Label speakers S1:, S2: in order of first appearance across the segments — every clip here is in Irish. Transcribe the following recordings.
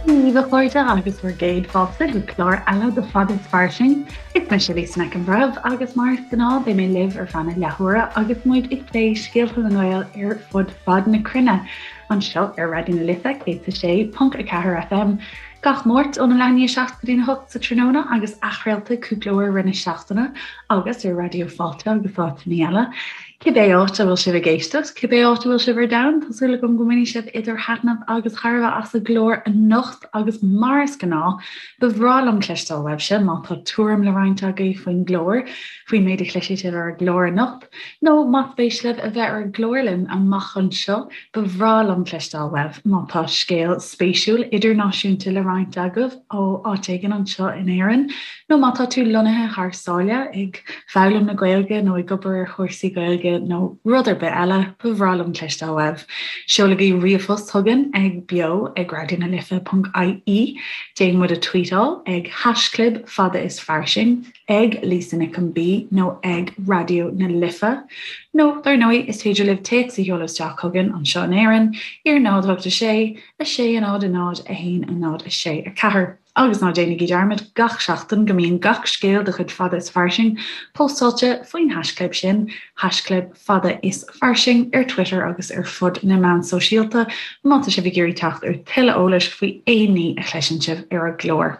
S1: Dia daoibh a chairde agus bhur gcéad fáilte go clár eile de Fada is Fairsing. Is mise Lisa Nic an Bhreithimh agus mar is gnáth beidh mé libh ar feadh na leathuaire agus muid ag plé scéalta na nGael ar fud fad na cruinne anseo ar Raidió na Life 106.4 FM gach Máirt óna leath i ndiaidh 7 go dtína 8 sa tráthnóna agus athchraolta cúpla uair i rith na seachtaine agus ar Raidió Fáilte agus áiteanna eile. Cibé áit a bhfuil sibh ag éisteacht, cibé áit a bhfuil sibh ar domhan, tá súil agam go mbainfidh sibh idir thaitneamh agus thairbhe as an gclár anocht agus mar is gnáth, ba bhreá liom cloisteáil uaibhse má tá tuairim le roinnt agaibh faoin gclár, faoin méid a chloisfidh sibh ar an gclár anocht, nó más spéis libh a bheith ar an gclár linn amach anseo, ba bhreá liom cloisteáil uaibh má tá scéal spéisiúil idirnáisiúnta le roinnt agaibh ó áit éigin anseo in Éirinn. Nó má tá tú lonnaithe thar sáile, ag foghlaim na Gaeilge nó ag obair ar chúrsaí Gaeilge nó rud ar bith eile, ba bhreá liom cloisteáil uaibh. Seolaigí ríomhphost chugainn ag beo ag raidionalife.ie, Déan muid a tweetáil ag haischlib fada is fairsing, ag Lisa Nic an B nó ag Raidió na Life. Nó, dar ndóigh, is féidir libh téacs a sheoladh isteach chugainn anseo in Éirinn ar 0 8 6 6 0 0 1 0 6 4. Agus ná déanaigí dearmad gach seachtain go mbíonn gach scéal de chuid Fada is Fairsing póstáilte faoin haischlib sin, haischlib Fada is Fairsing, ar Twitter agus ar fud na meán sóisialta má tá sibh ag iarraidh teacht ar tuilleadh eolais faoi aon ní a chloiseann sibh ar an gclár.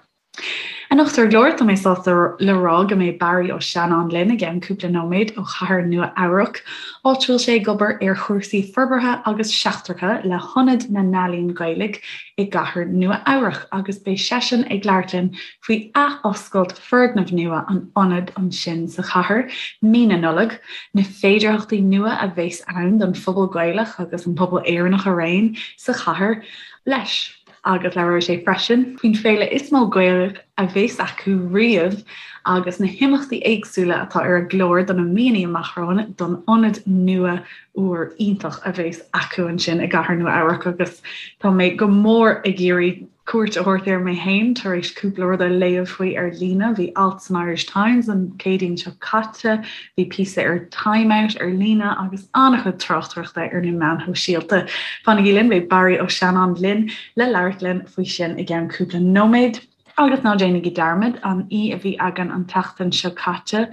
S1: Anocht ar an gclár, tá mé sásta le rá go mbeidh Barry Ó Seanáin linn i gceann cúpla nóiméad ó chathair Nua Eabhrac, áit a bhfuil sé ag obair ar chúrsaí forbartha agus seachtracha le hIonad na nEalaíon Gaelach i gcathair Nua Eabhrac agus beidh seisean ag labhairt linn faoi athoscailt foirgneamh nua an ionaid ansin sa chathair mí na Nollag, na féidearthachtaí nua a bheas ann don phobal Gaelach agus an pobal Éireannach araon sa chathair leis. Agus labhróidh sé freisin faoin féile is mó Gaelach a bheas acu riamh agus na himeachtaí éagsúla atá ar an gclár do na míonna amach romhainn don ionad nua úr iontach a bheas acu ansin i gcathair Nua Eabhrac agus tá mé go mór ag iarraidh cuairt a thabhairt air mé féin tar éis cúpla rud a léamh faoi ar líne. Bhí alt san Irish Times an Chéadaoin seo caite, bhí píosa ar Time Out ar líne agus an-chuid tráchtaireachta ar na meáin shóisialta. Fanaigí linn, beidh Barry Ó Seanáin linn le labhairt linn faoi sin i gceann cúpla nóiméad. Agus ná déanaigí dearmad, an aoi a bhí againn an tseachtain seo caite,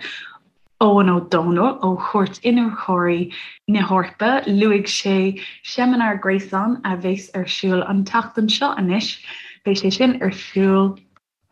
S1: Eoghan Ó Dónaill ó Chúirt Iniúchóirí na hEorpa, luaigh sé seimineár gréasáin a bheas ar siúl an tseachtain seo anois. Beidh sé sin ar siúl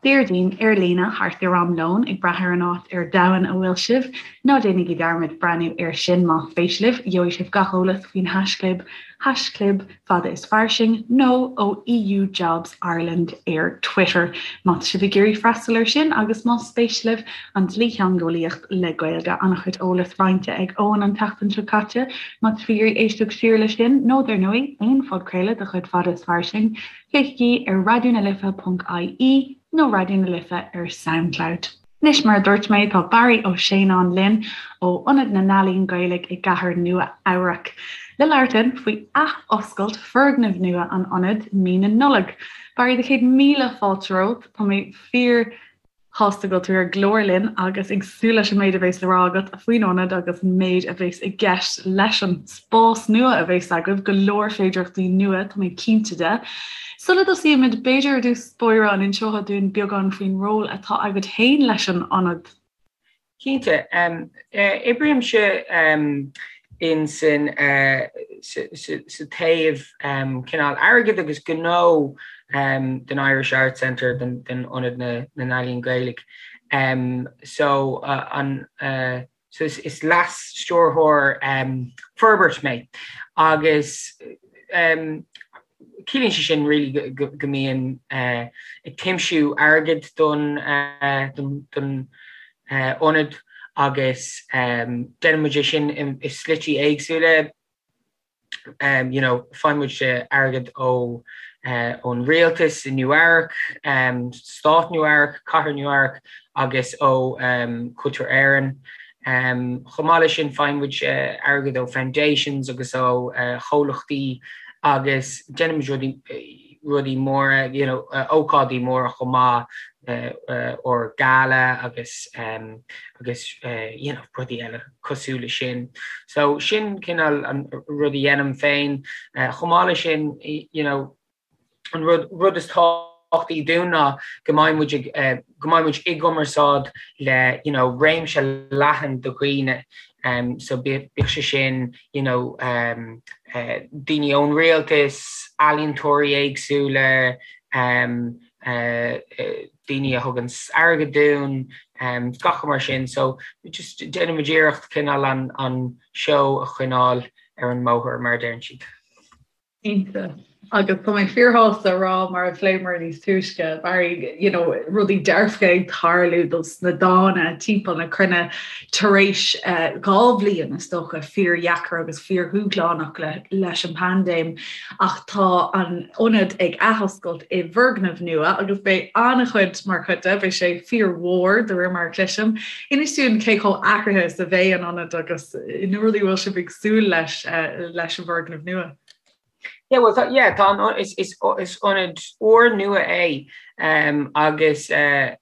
S1: Déardaoin ar líne thart ar am lóin, ag brath ar an áit ar domhan a bhfuil sibh. Ná déanaigí dearmad breathnú air sin más spéis libh. Gheobhaidh sibh gach eolas faoin haischlib, haischlib. Fada is Fairsing nó ó EU Jobs Ireland ar Twitter má tá sibh ag iarraidh freastal air sin agus más spéis libh an dlítheangeolaíocht le Gaeilge. An-chuid eolas roinnte ag Eoghan an tseachtain seo caite má tá sibh ag iarraidh éisteacht siar leis sin nó dar ndóigh aon phodchraoladh de chuid Fada is Fairsing, féachaigí ar raidionalife.ie nó Raidió na Life ar Soundcloud. Anois, mar a dúirt mé, tá Barry Ó Seanáin linn ó Ionad na nEalaíon Gaelach i gcathair Nua Eabhrac le labhairt linn faoi athoscailt foirgneamh nua an ionaid mí na Nollag. Barry, do chéad míle fáilte romhat. Tá mé fíor shásta go bhfuil tú ar an gclár linn agus ag súil leis an méid a bheas le rá agat faoin ionad agus an méid a bheas i gceist leis an spás nua a bheas agaibh, go leor féidearthachtaí nua, tá mé cinnte de. Sula dtosaímid, b'fhéidir ar dtús báire an inseofá dúinn beagán faoin ról atá agat féin leis an ionad?
S2: Cinnte. Oibrímse in san sa taobh cineál airgid agus gnó den Irish Arts Centre, den Ionad na nEalaíon Gaelach. So an So is leas-stiúrthóir forbairt mé agus ciallaíonn sé sin really go mbím ag tiomsú airgid don don ionad agus déanann muid é sin i slití éagsúla. you know, faigheann muid airgead ó ón rialtas i Nua Eabhrac, Stát Nua Eabhrac, Cathair Nua Eabhrac agus ó Cultúr Éireann. Chomh maith leis sin faigheann muid airgead ó foundations agus ó chomhlachtaí agus déanann muid rudaí rudaí móra, you know, ócáidí móra chomh maith, ár gala agus agus you know, rudaí eile cosúil le sin. So sin cineál an rud a dhéanaim féin. Chomh maith le sin, you know, An rud rud is tábhachtaí dúinn ná go mbeidh muid ag go mbeidh muid i gcumarsáid le you know réimse leathan de dhaoine so bíodh sé sin you know daoine ón rialtas, ealaíontóirí éagsúla, daoine a thugann airgead dúinn, gach rud mar sin. So just déanann muid iarracht cineál an an seó a choinneáil ar an mbóthar mar a deireann siad.
S1: Cinnte. Agus tá mé fíorshásta a rá, mar a phléamar níos túisce, Barry, you know, rudaí dearfacha ag tarlú dos na dána timpeall na cruinne tar éis eh, 2 bhliain is dócha fíordheacair agus fíordhúshlánach le, leis an bpaindéim. Ach tá an ionad ag athoscailt i bhfoirgneamh nua agus beidh an-chuid mar chuid de, beidh sé fíormhór de réir mar a chloisim. Inis dúinn cé chomh athraithe is a bheidh an ionad agus na rudaí a bhfuil sibh ag súil leis leis an bhfoirgneamh nua.
S2: Yeah, well, tá, yeah, tá an, is, is, is ionad úrnua é um, agus uh,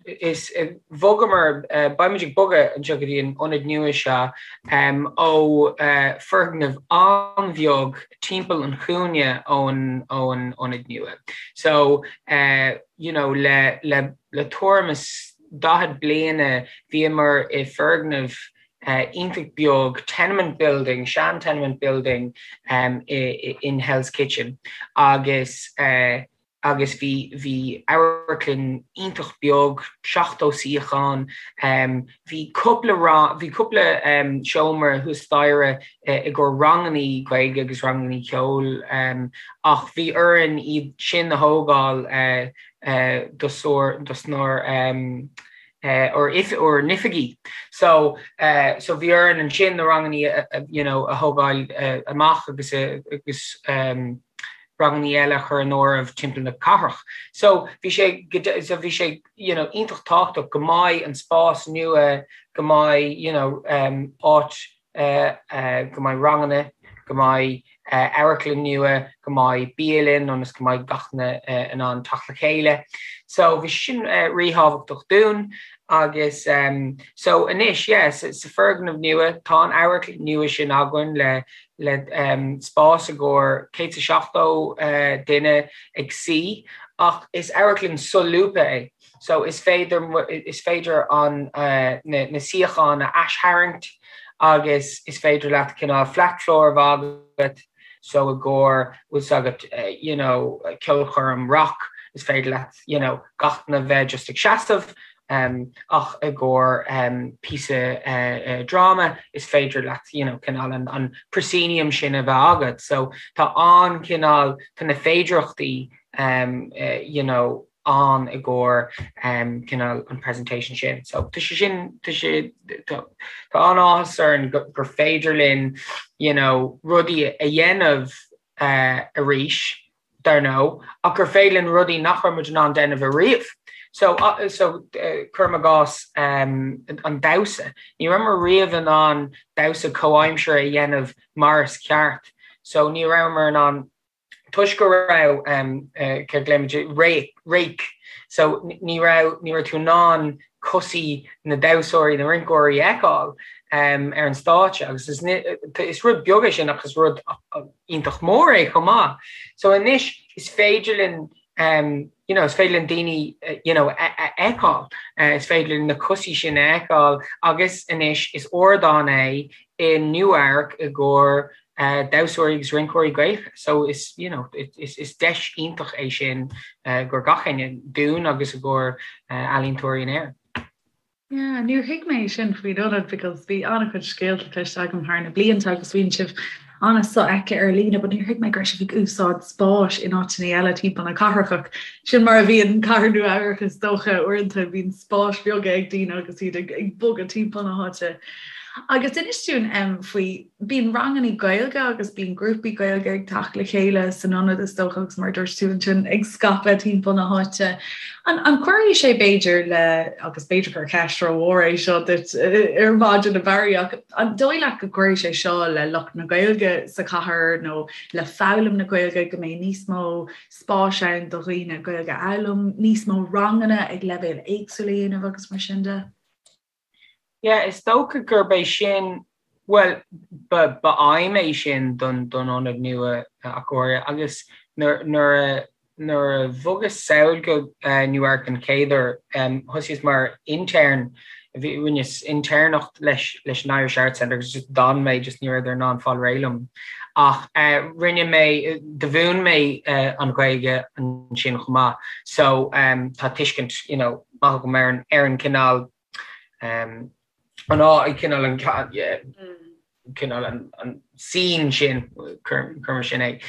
S2: is uh, bhogamar, uh, beimid ag bogadh anseo go dtí an ionad nua seo um, ó uh, foirgneamh an-bheag timpeall an chúinne ón, ón ionad nua. So, uh, you know, le, le, le tuairim is 40 bliana bhíomar i foirgneamh iontach beag, tenement building, sean tenement building in Hell's Kitchen agus agus bhí bhí amharclann iontach beag, 70 suíochán, bhí cúpla bhí cúpla seomra thuas staighre i gcomhair rangannaí Gaeilge agus rangannaí ceoil ach bhí orainn iad sin a thógáil dosnár ár n-oifigí. So so bhí orainn ansin na rangannaí you know a thógáil amach agus agus rangannaí eile a chur in áireamh timpeall na cathrach. So bhí sé so bhí sé you know iontach tábhachtach go mbeidh an spás nua, go mbeidh you know áit go mbeidh ranganna, go mbeidh amharclann nua, go mbeidh bialann ionas go mbeidh gach duine in ann teacht le chéile. So bhí sé sin ríthábhachtach dúinn agus so anois yeah sa foirgneamh nua tá an amharclann nua sin againn le le spás i gcomhair 170 duine ag suí ach is amharclann solúbtha é. So is féidir is féidir an na na suíocháin a aistharraingt agus is féidir leat cineál flat floor a bheith agat so i gcomhair bhfuil 's agat you know ceolchoirm rock is féidir leat you know gach duine bheith just ag seasamh um, ach i gcomhair um, píosa uh, uh, dráma is féidir leat you know cineál an, an proscenium sin a bheith agat so tá an cineál tá na féidearthachtaí um, uh, you know ann i gcomhair cineál an presentation sin. So tá sé sin tá sé tá an-áthas orainn gur féidir linn you know rudaí a dhéanamh arís dar ndóigh ach gur féidir linn rudaí nach raibh muid in ann déanamh ariamh. So so cuirim i gcás an damhsa. Ní rabhamar riamh in ann damhsa comhaimseartha a dhéanamh mar is ceart. So ní rabhamar in ann toisc go raibh céard a glaoimid rake, so ní raibh ní raibh tú in ann cosaí na damhsóirí, na rinceoirí a fheiceáil ar an stáitse agus is is rud beag é sin ach is rud iontach mór é chomh maith. So anois is féidir linn you know is féidir linn daoine you know a fheiceáil, is féidir linn na cosaí sin a fheiceáil agus anois is ardán é i Nua-Eabhrac i gcomhair damhsóirí agus rinceoirí Gaelacha so is you know is is deis iontach é sin i gcomhair gach éinne, dúinn agus i gcomhair ealaíontóirí in Éirinn.
S1: Yeah, níor thuig mé sin faoin ionad because bhí an-chuid scéalta cloiste agam thar na blianta agus bíonn sibh an-sofheicthe ar líne but níor thuig mé go raibh sibh ag úsáid spáis in áiteanna eile timpeall na cathrach ach sin mar a bhíonn cathair Nua Eabhrac is dócha uaireanta bíonn spáis bheaga ag daoine agus iad ag ag bogadh timpeall na háite. Agus inis dúinn um, faoi Bíonn ranganna Gaeilge agus bíonn grúpaí Gaeilge ag teacht le chéile san ionad is dócha agus mar a dúirt tú ansin ag scaipeadh timpeall na háite. An an gcuirfidh sé b'fhéidir le, agus b'fhéidir gur ceist rómhór é seo duit ar maidin a Bharry, ach an dóigh leat go gcuirfidh sé seo le lucht na Gaeilge sa chathair nó le foghlaim na Gaeilge go mbeidh níos mó spáis ann do dhaoine Gaeilge a fhoghlaim, níos mó ranganna ag leibhéil éagsúla a dhéanamh agus mar sin de?
S2: Yeah, is dócha gurb é sin, bhuel, ba, ba aidhm é sin don, don ionad nua ach go háirithe agus nuair, nuair a, nuair a bhogas sall go Nua Eabhrac den chéad uair, thosaíos mar intern, bhí, rinneas intéirneacht leis, leis an Irish Arts Centre agus just d'fhan mé, just ní rabhadar in ann fáil réidh liom. Ach rinne mé, do mhúin mé an Ghaeilge ansin chomh maith so tá tuiscint, you know, maith agam ar an, ar an cineál, an á, cineál an, cineál an, an scene sin, cuir mar sin é.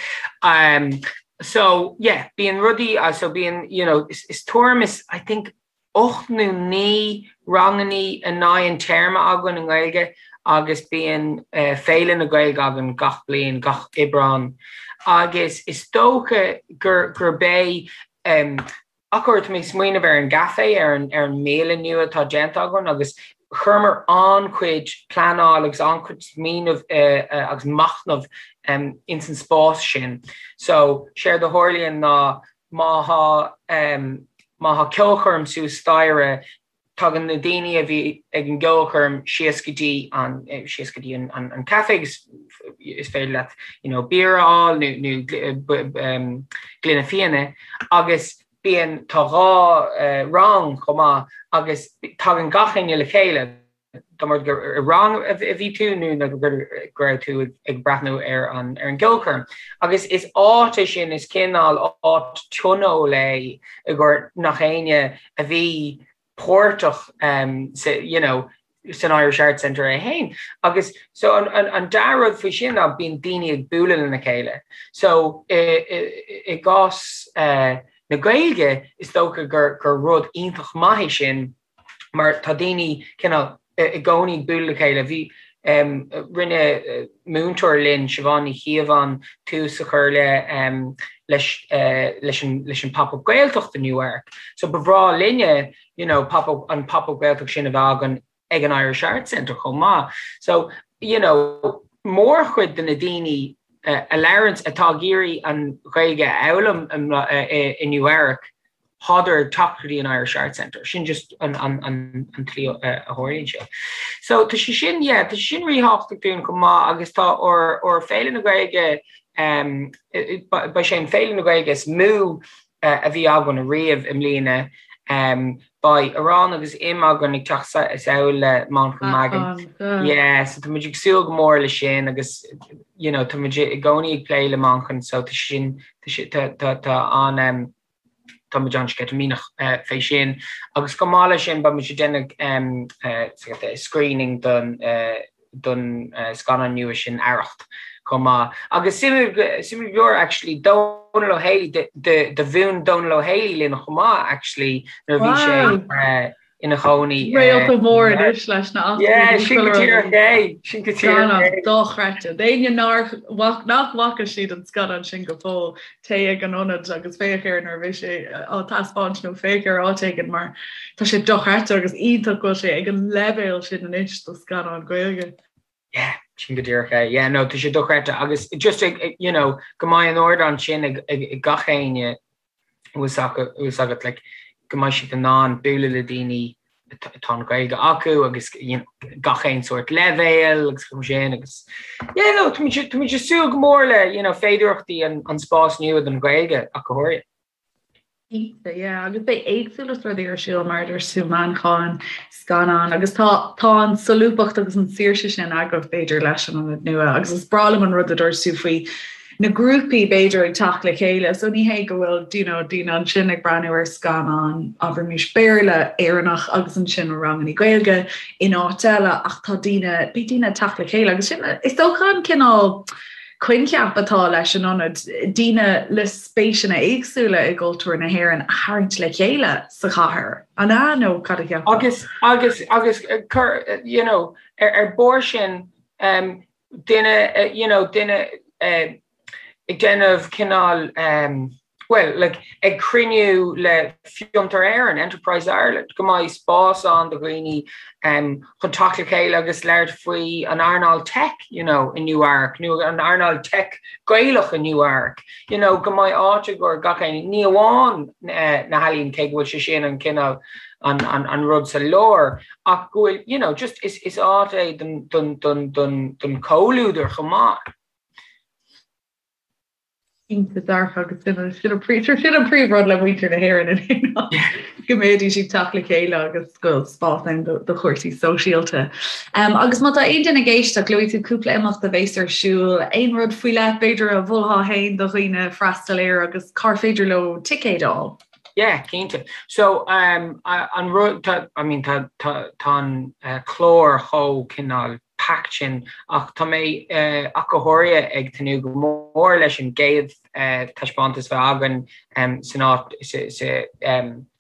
S2: So yeah, bíonn rudaí, so bíonn, you know, is, is tuairim is, I think, 8 nó 9 rangannaí in aghaidh an téarma againn i nGaeilge agus bíonn Féile na Gaeilge againn gach bliain, gach Aibreán agus is dócha gur gurb é ach tá mé ag smaoineamh ar an gcaifé, ar an ar an mbialann nua atá déanta againn agus chuireamar an-chuid pleanáil agus an-chuid smaoineamh agus machnamh ins an spás sin. So, séard a tharlaíonn ná Má thá má thá ceolchoirm suas staighre, tagann na daoine a bhí ag an gceolchoirm síos go dtí an síos go dtí an an caife agus is féidir leat you know beer a fháil nó nó gloine fíona agus bíonn tá 2 rang chomh maith agus tagann gach éinne le chéile. Dá mba rud gur i rang a bhí tú nó go raibh tú ag breathnú ar an ar an gceolchoirm. Agus is áit é sin, is cineál áit tionóil é i gcomhair nach éinne a bhí páirteach sa you know san Irish Arts Centre é féin. Agus so an an an dea-rud faoi sin ná bíonn daoine ag bualadh lena chéile. So i i i gcás na Gaeilge is dócha gur gur rud iontach maith é sin, mar tá daoine cineál i gcónaí ag bualadh le chéile. Bhí, rinne múinteoir linn, Siobhán Ní Chíobháin, tús a chur le leis leis an leis an Pop-Up Gaeltacht i Nua Eabhrac. So ba bhreá linne you know pop-up an Pop-Up Gaeltacht sin a bheith againn ag an Irish Arts Centre chomh maith. So you know mórchuid de na daoine a labhranns atá ag iarraidh an Ghaeilge a fhoghlaim i Nua Eabhrac, Thádar ag teacht go dtí an Irish Arts Centre. Sin just an tslí a tharlaíonn sé. So tá sé sin, yeah, tá sé sin ríthábhachtach dúinn chomh maith agus tá ár ár Féile na Gaeilge, beidh sé an Féile na Gaeilge is mó a bhí againn ariamh i mbliana. Beidh Arán agus Im againn ag teacht sall le Manchán Magan. Yeah, so tá muid ag súil go mór le sin agus you know tá muid i gcónaí ag plé le Manchán so tá sin tá tá tá an Tá muid an-sceitimíneach fé sin agus chomh maith leis sin beidh muid ag déanamh screening don don scannán nua sin Arracht chomh maith. Agus suimiúil suimiúil go leor actually Dónal Ó Héalaí do mhúin Dónal Ó Héalaí linn chomh maith actually nuair a bhí sé ina chónaí.
S1: Réalta mór anois leis
S2: na Yeah, sin go díreach é, sin go
S1: díreach é. Dochreidte. D'éinne nár nach bhfaca siad an scannán sin go fóill, téigh ag an ionad agus féach air nuair a bheidh sé á taispeáint nó féach air áit éigin mar tá sé dochreidte agus iontach go bhfuil sé ag an leibhéal sin anois do scannán Gaeilge.
S2: Yeah, sin go díreach é. Yeah, no, tá sé dochreidte agus just ag, you know, go mbeidh an ardán sin ag, ag, ag gach éinne bhfuil 's agat, like, go mbeidh siad in ann bualadh le daoine atá an Ghaeilge acu agus you know, gach aon sórt leibhéal agus chomh sin agus yeah, no, tá muid tá muid ag súil go mór le you know, féidearthachtaí an, an spás nua don Ghaeilge ach go háirithe.
S1: Cinnte, yeah, agus beidh éagsúlacht rudaí ar siúl mar a dúirt tú, Manchán, scannán, agus tá tá an solúbthacht agus an saoirse sin agaibh b'fhéidir leis an ionad nua agus is breá liom an rud a dúirt tú faoi na grúpaí b'fhéidir ag teacht le chéile so ní hé go bhfuil you know, daoine ansin ag breathnú ar scannán abraimis Béarla Éireannach agus ansin ranganna Gaeilge in áit eile ach tá daoine beidh daoine ag teacht le chéile agus sin is dócha an cineál coincheap atá leis an ionad, daoine le spéiseanna éagsúla i gcultúr na hÉireann a tharraingt le chéile sa chathair. An ea nó cad a
S2: cheapfá? Agus agus agus cur you know, ar ar bharr sin um, duine you know duine ag déanamh cineál bhuel like ag cruinniú le Fiontar Éireann, Enterprise Ireland, go mbeidh spás ann do dhaoine chun teacht le chéile agus labhairt faoi an earnáil tech you know i Nua Eabhrac nó an earnáil tech Gaelach i Nua Eabhrac you know go mbeidh áit i gcomhair gach éinne, ní amháin na healaíona cé go bhfuil sé sin an cineál an an an rud sa lár ach go bhfuil you know just is is áit é don don don don don chomhluadar chomh maith.
S1: Cinnte dearfa agus sin an sin an sin an príomhrud le muintir na hÉireann in aon go mbeidís ag teacht le chéile agus go bhfuil spás ann do do chúrsaí sóisialta. Um, agus má tá aon duine ag éisteacht, luaigh tú cúpla imeacht a bheas ar siúl, aon rud faoi leith b'fhéidir a mholfá féin do dhaoine freastal air agus cár féidir leo ticéid a fháil?
S2: Yeah, cinnte. So um, an rud tá I mean tá tá tá an uh, clár chomh cineál packed sin ach tá mé ach go háirithe ag tnúth go mór leis an gcéad taispeántas a bheidh againn san áit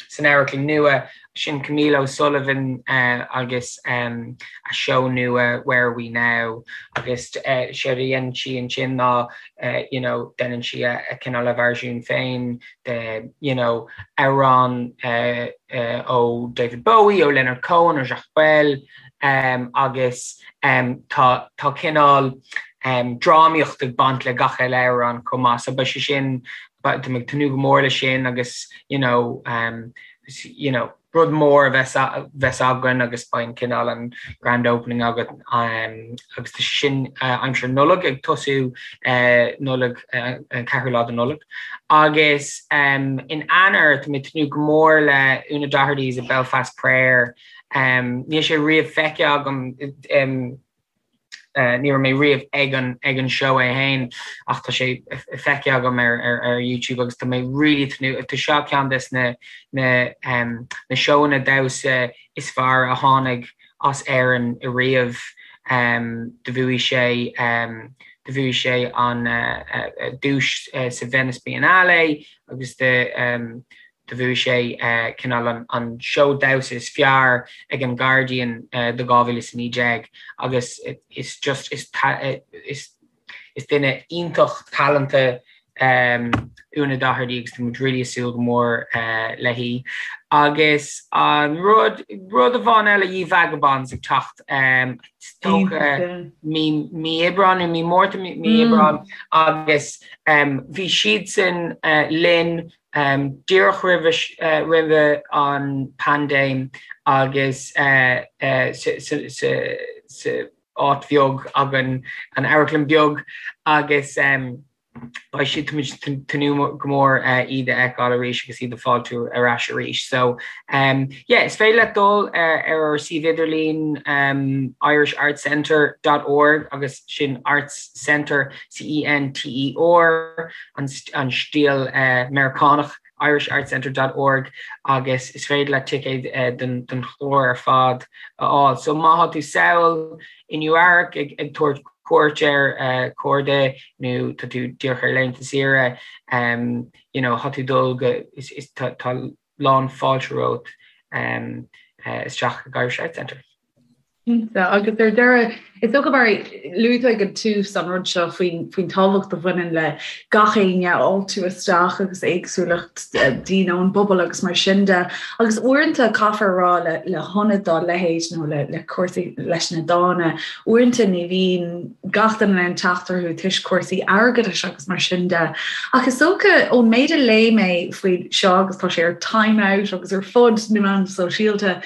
S2: san amharclann nua, sin Camille O'Sullivan agus a seó nua Where Are We Now agus séard a dhéanann sí ansin ná you know déanann sí a cineál a veirsiún féin de you know amhrán ó David Bowie, ó Leonard Cohen, ó Jacques Brel. agus tá tá cineál drámaíocht ag baint le gach uile amhrán chomh maith so beidh sé sin tá mé ag tnúth go mór leis sin agus you know you know rud mór a bheas bheas againn agus beidh an cineál an grand opening againn agus tá sé sin aimsir Nollag ag tosú Nollaig an ceathrú lá de Nollaig agus in Eanáir tá mé ag tnúth go mór le Una Doherty's A Belfast Prayer Níl sé riamh feicthe agam, ní raibh mé riamh ag an ag an seó é féin ach tá sé feicthe agam ar ar ar YouTube agus tá mé really tnúth, tá seo ceann des na na na seóanna damhsa is fearr a tháinig as Éirinn ariamh. Do bhuaigh sé do bhuaigh sé an duais sa Venice Biennale agus do Do bhuaigh sé cineál an seó damhsa is fearr ag an Guardian do 2019 agus is just is is duine iontach talanta Una Doherty agus tá muid really ag súil go mór léi. Agus an rud rud amháin eile Ye Vagabonds ag teacht is dócha mí mí Aibreán nó mí Márta mí Aibreán agus bhí siadsan linn Díreach roimhe an paindéim agus sa áit bheag againn, an amharclann bheag, agus beidh siad, tá muid ag tnúth go mór iad a fheiceáil arís agus iad a fáiltiú ar ais arís. So yeah, is féidir leat dul ar ár suíomh idirlín irishartscentre dot org agus sin Arts Centre, C-E-N-T-E-R, an stíl Meiriceánach, irishartscentre dot org agus is féidir leat ticéid don chlár ar fad a fháil. So má tá tú sall i Nua Eabhrac ag tabhairt cuairt ar chairde nó tá tú díreach ar laethanta saoire, you know, tá tú dul go, is tá lán fáilte romhat isteach ag Irish Arts Centre.
S1: Cinnte, agus ar deireadh, is dócha Barry, luaigh tú ag an tús an rud seo faoin faoin tábhacht a bhaineann le gach éinne a fháiltiú isteach agus éagsúlacht daoine ón bpobal agus mar sin de. Agus uaireanta caithfear a rá le le hionad dá leithéid nó le le cúrsaí leis na dána, uaireanta ní bhíonn gach duine in ann teacht orthu toisc cúrsaí airgeadais agus mar sin de. Ach is dócha ón méid a léigh mé faoi seo agus tá sé ar Time Out agus ar fud na meán sóisialta,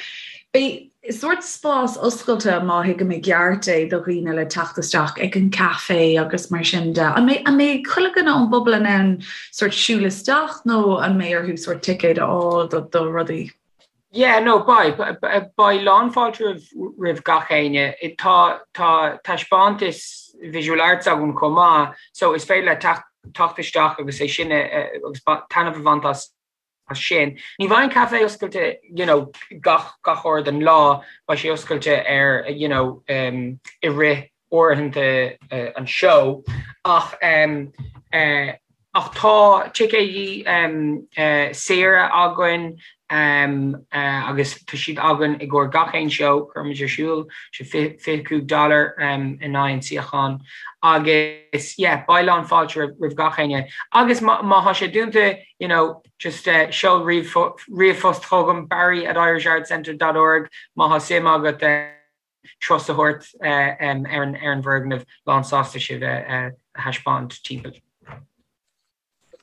S1: beidh sórt spás oscailte, má thuigim i gceart é, do dhaoine le teacht isteach ag an caife agus mar sin de. An mbeidh, an mbeidh chuile dhuine ón bpobal in ann sórt siúl isteach nó an mbeidh orthu sórt ticéad a fháil do, do rudaí?
S2: Yeah, no, beidh, beidh lánfháilte roimh, roimh gach éinne. Tá, tá taispeántas visual arts againn chomh maith, so is féidir leat teacht, teacht isteach agus é sin a, agus taitneamh a bhaint as as sin. Ní bheidh an caife oscailte you know gach gach uair den lá, beidh sé oscailte ar you know um, i rith uaireanta uh, an seó ach um, uh, ach tá ticéidí um, uh, saora againn um, uh, agus tá siad againn i gcomhair gach aon seó a chuirimid ar siúl, sé 25 dollar um, in aghaidh an suíochán agus yeah, beidh lán fáilte roimh, roimh gach éinne agus má, má tá sé dúnta you know, just seol ríomhphost chugam, barry at irishartscentre dot org, má tá suim agat turas a thabhairt ar an bhfoirgneamh, lán sásta sibh a thaispeáint timpeall.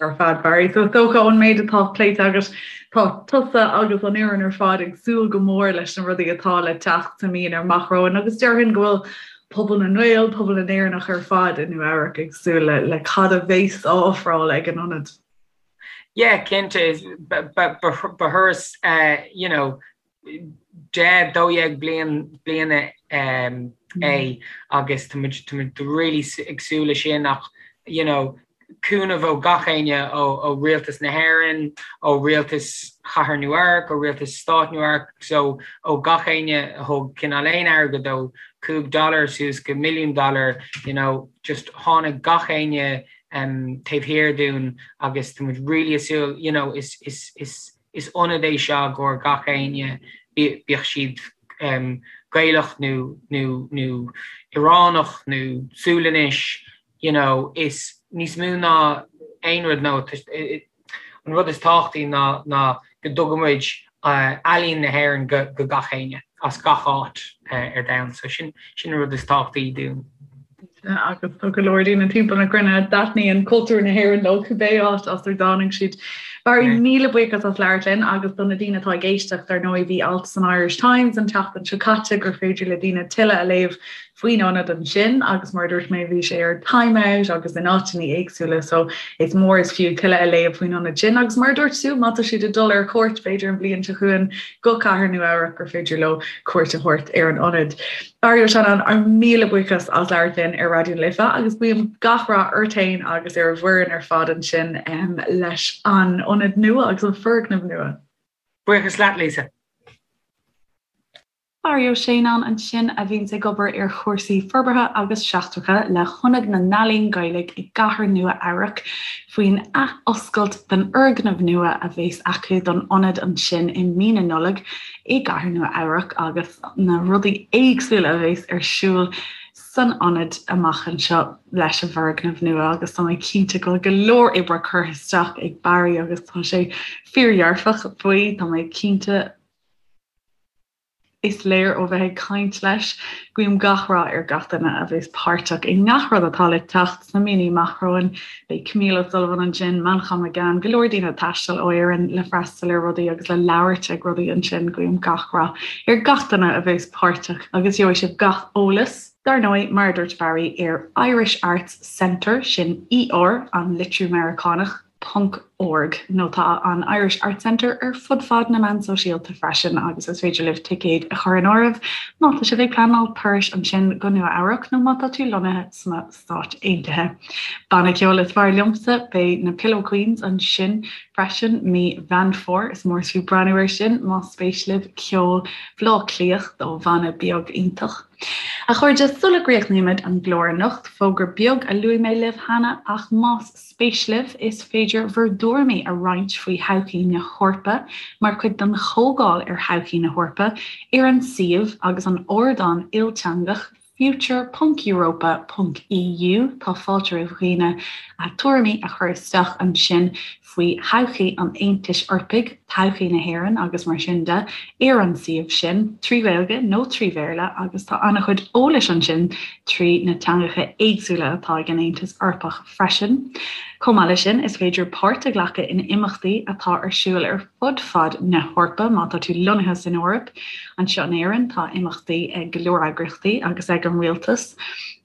S1: Ar fad, Barry. So is dócha ón méid atá pléite agat, tá tusa agus an fhoireann ar fad ag súil go mór leis na rudaí atá le teacht sa mí amach romhainn agus déarfainn go bhfuil. pobal na nGael, pobal na nÉireannach ar fad i Nua Eabhrac ag súil le le cad a bheas á ofráil ag an ionad.
S2: Yeah, cinnte, ba thuras you know, 10, 12 bliain bliana é agus tá muid tá muid really ag súil le sin ach you know, cúnamh ó gach éinne ó Rialtas na hÉireann, ó Rialtas Chathair Nua Eabhrac, ó Rialtas Stát Nua Eabhrac, so ó gach éinne a thug cineál aon airgead ó 5 dollar suas go milliún dollar, you know, just tháinig gach éinne taobh thiar dúinn agus tá muid really ag súil, you know, is, is, is, is ionad é seo i gcomhair gach éinne, bíodh siad Gaelach nó, nó, nó Ioránach nó Sualainnis, you know, is níos mó ná aon rud nó an rud is tábhachtaí ná ná go dtugann muid ealaín na hÉireann go go gach éinne as gach áit ar domhan. So sin sin an rud is tábhachtaí dúinn.
S1: Agus tá go leor daoine timpeall na cruinne a dtaitníonn cultúr na hÉireann leo cibé áit as ar dtáinig siad. Barry, míle buíochas as labhairt linn agus do na daoine atá ag éisteacht, ar ndóigh bhí alt san Irish Times an tseachtain seo caite gur féidir le daoine tuilleadh a léamh faoin ionad ansin agus mar a dúirt mé bhí sé ar Time Out agus in áiteanna éagsúla so is mór is fiú tuilleadh a léamh faoin ionad sin agus mar a dúirt tú má tá siad ag dul ar cuairt b'fhéidir an bhliain seo chugainn go Cathair Nua Eabhrac gur féidir leo cuairt a thabhairt ar an ionad. Barry Ó Seanáin ár míle buíochas as labhairt linn ar Raidió na Life agus guím gach rath ort féin agus ar an bhfoireann ar fad ansin leis an ionad nua agus an foirgneamh nua.
S2: Buíochas leat Lisa.
S1: Barry Ó Seanáin ansin a bhíonns ag obair ar chúrsaí forbartha agus seachtracha le hIonad na nEalaíon Gaeilge i gCathair Nua Eabhrac faoin ath-oscailt den fhoirgneamh nua a bheas acu don ionad ansin i mí na Nollag i gCathair Nua Eabhrac agus na rudaí éagsúla a bheas ar siúl san ionad amach anseo leis an bhfoirgneamh nua agus tá mé cinnte go bhfuil go leor oibre curtha isteach ag Barry agus tá sé fíordhearfach faoi, tá mé cinnte. Is léir ó bheith ag caint leis. Guím gach rath ar gach duine a bheas páirteach i ngach rud atá le teacht sna míonna amach romhainn. Beidh Camille O'Sullivan ansin, Manchán Magan, go leor daoine ag taisteal ó Éirinn le freastal ar rudaí agus le labhairt ag rudaí ansin. Guím gach rath ar gach duine a bheas páirteach agus gheobhaidh sibh gach eolas, dar ndóigh, mar a dúirt Barry, ar Irish Arts Centre, sin ER, an litriú Meiriceánach, ponc org nó tá an Irish Arts Centre ar fud fad na meán sóisialta freisin agus is féidir libh ticéid a chur in áirithe má tá sibh ag pleanáil turais ansin go Nua Eabhrac nó má tá tú lonnaithe sna Stáit Aontaithe. Banna ceoil is fearr liomsa, beidh na Pillow Queens ansin freisin mí Mheán Fómhair, is mór is fiú breathnú air sin más spéis libh ceol Bhaile Átha Cliath ó bhanna beag iontach. A chairde, sula gcríochnaímid an glár anocht, fógra beag a luaigh mé libh cheana ach más spéis libh, is féidir bhur dtuairimí a roinnt faoi thodhchaí na hEorpa mar chuid den Chomhdháil ar Thodhchaí na hEorpa ar an suíomh agus an ardán ilteangach future ponc europa ponc eu. Tá fáilte roimh dhaoine a dtuairimí a chur isteach ansin faoi thodhchaí an Aontais Eorpaigh, todhchaí na hÉireann agus mar sin de ar an suíomh sin, trí Ghaeilge nó trí Bhéarla agus tá an-chuid eolais ansin trí na teangacha éagsúla atá ag an Aontas Eorpach freisin. Chomh maith leis sin, is féidir páirt a ghlacadh in imeachtaí atá ar siúl ar fud fad na hEorpa má tá tú lonnaithe san Eoraip. Anseo in Éirinn, tá imeachtaí ag go leor eagraíochtaí agus ag an rialtas,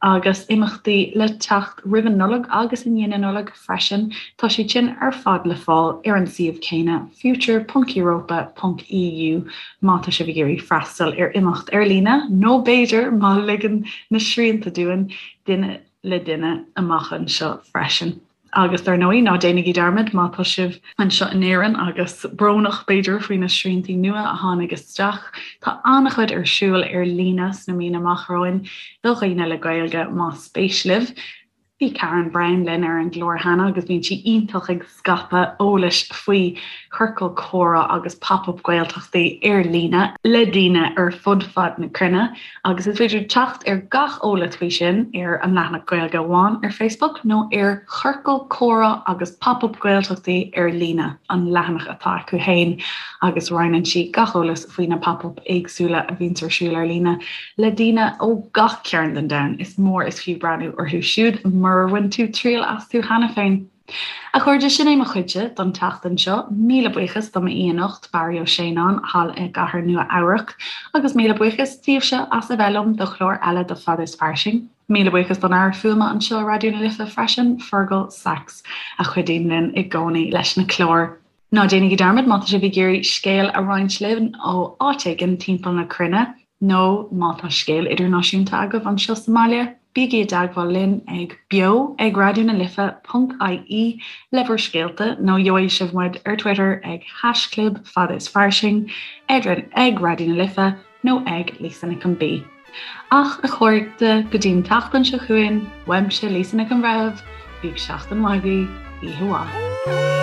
S1: agus imeachtaí le teacht roimh an Nollaig agus i ndiaidh na Nollag freisin. Tá siad sin ar fad le fáil ar an suíomh céanna, future ponc europa ponc eu, má tá sibh ag iarraidh freastal ar imeacht ar líne nó b'fhéidir, má ligeann na srianta dúinn, duine le duine amach anseo freisin. Agus dar ndóigh, ná déanaigí dearmad má tá sibh anseo in Éirinn agus brónach b'fhéidir faoi na sriantaí nua a tháinig isteach, tá an-chuid ar siúl ar líne sna míonna amach romhainn do dhaoine le Gaeilge más spéis libh. Bhí Karen Brown linn ar an gclár cheana agus bíonn sí iontach ag scaipeadh eolais faoi chiorcal comhrá agus pop-up Gaeltachtaí ar líne le daoine ar fud fad na cruinne agus is féidir teacht ar gach eolas faoi sin ar an leathanach Gaeilge Amháin ar Facebook nó ar Chiorcal Comhrá agus Pop-up Gaeltachtaí ar líne, an leathanach atá acu féin agus roinneann sí gach eolas faoi na pop-up éagsúla a bhíonns ar siúl ar líne le daoine ó gach cearn den domhan. Is mór is fiú breathnú orthu siúd murar bhain tú triail astu cheana féin. A chairde, sin é mo chuidse don tseachtain seo. Míle buíochas do m'aoi anocht, Barry Ó Séanáin, thall i gcathair Nua Eabhrac, agus míle buíochas daoibhse as a bheith liom do chlár eile de Fada is Fairsing. Míle buíochas don fhear fuaime anseo i Raidió na Life freisin, Fergal Sachs, a chuidíonn linn i gcónaí leis na cláir. Ná déanaigí dearmad má tá sibh ag iarraidh scéal a roinnt linn ó áit éigin timpeall na cruinne, nó má tá scéal idirnáisiúnta agaibh anseo sa mbaile, bígí i dteagmháil linn ag beo ag raidió na life ponc ie le bhur scéalta, nó gheobhaidh sibh muid ar Twitter ag haischlib fada is fairsing, ag Raidió na Life nó ag Lisa Nic an B. Ach, a chairde, go dtí an tseachtain seo chugainn, uaimse Lisa Nic an Bhreithimh, bíodh seachtain mhaith agaibh, oíche mhaith.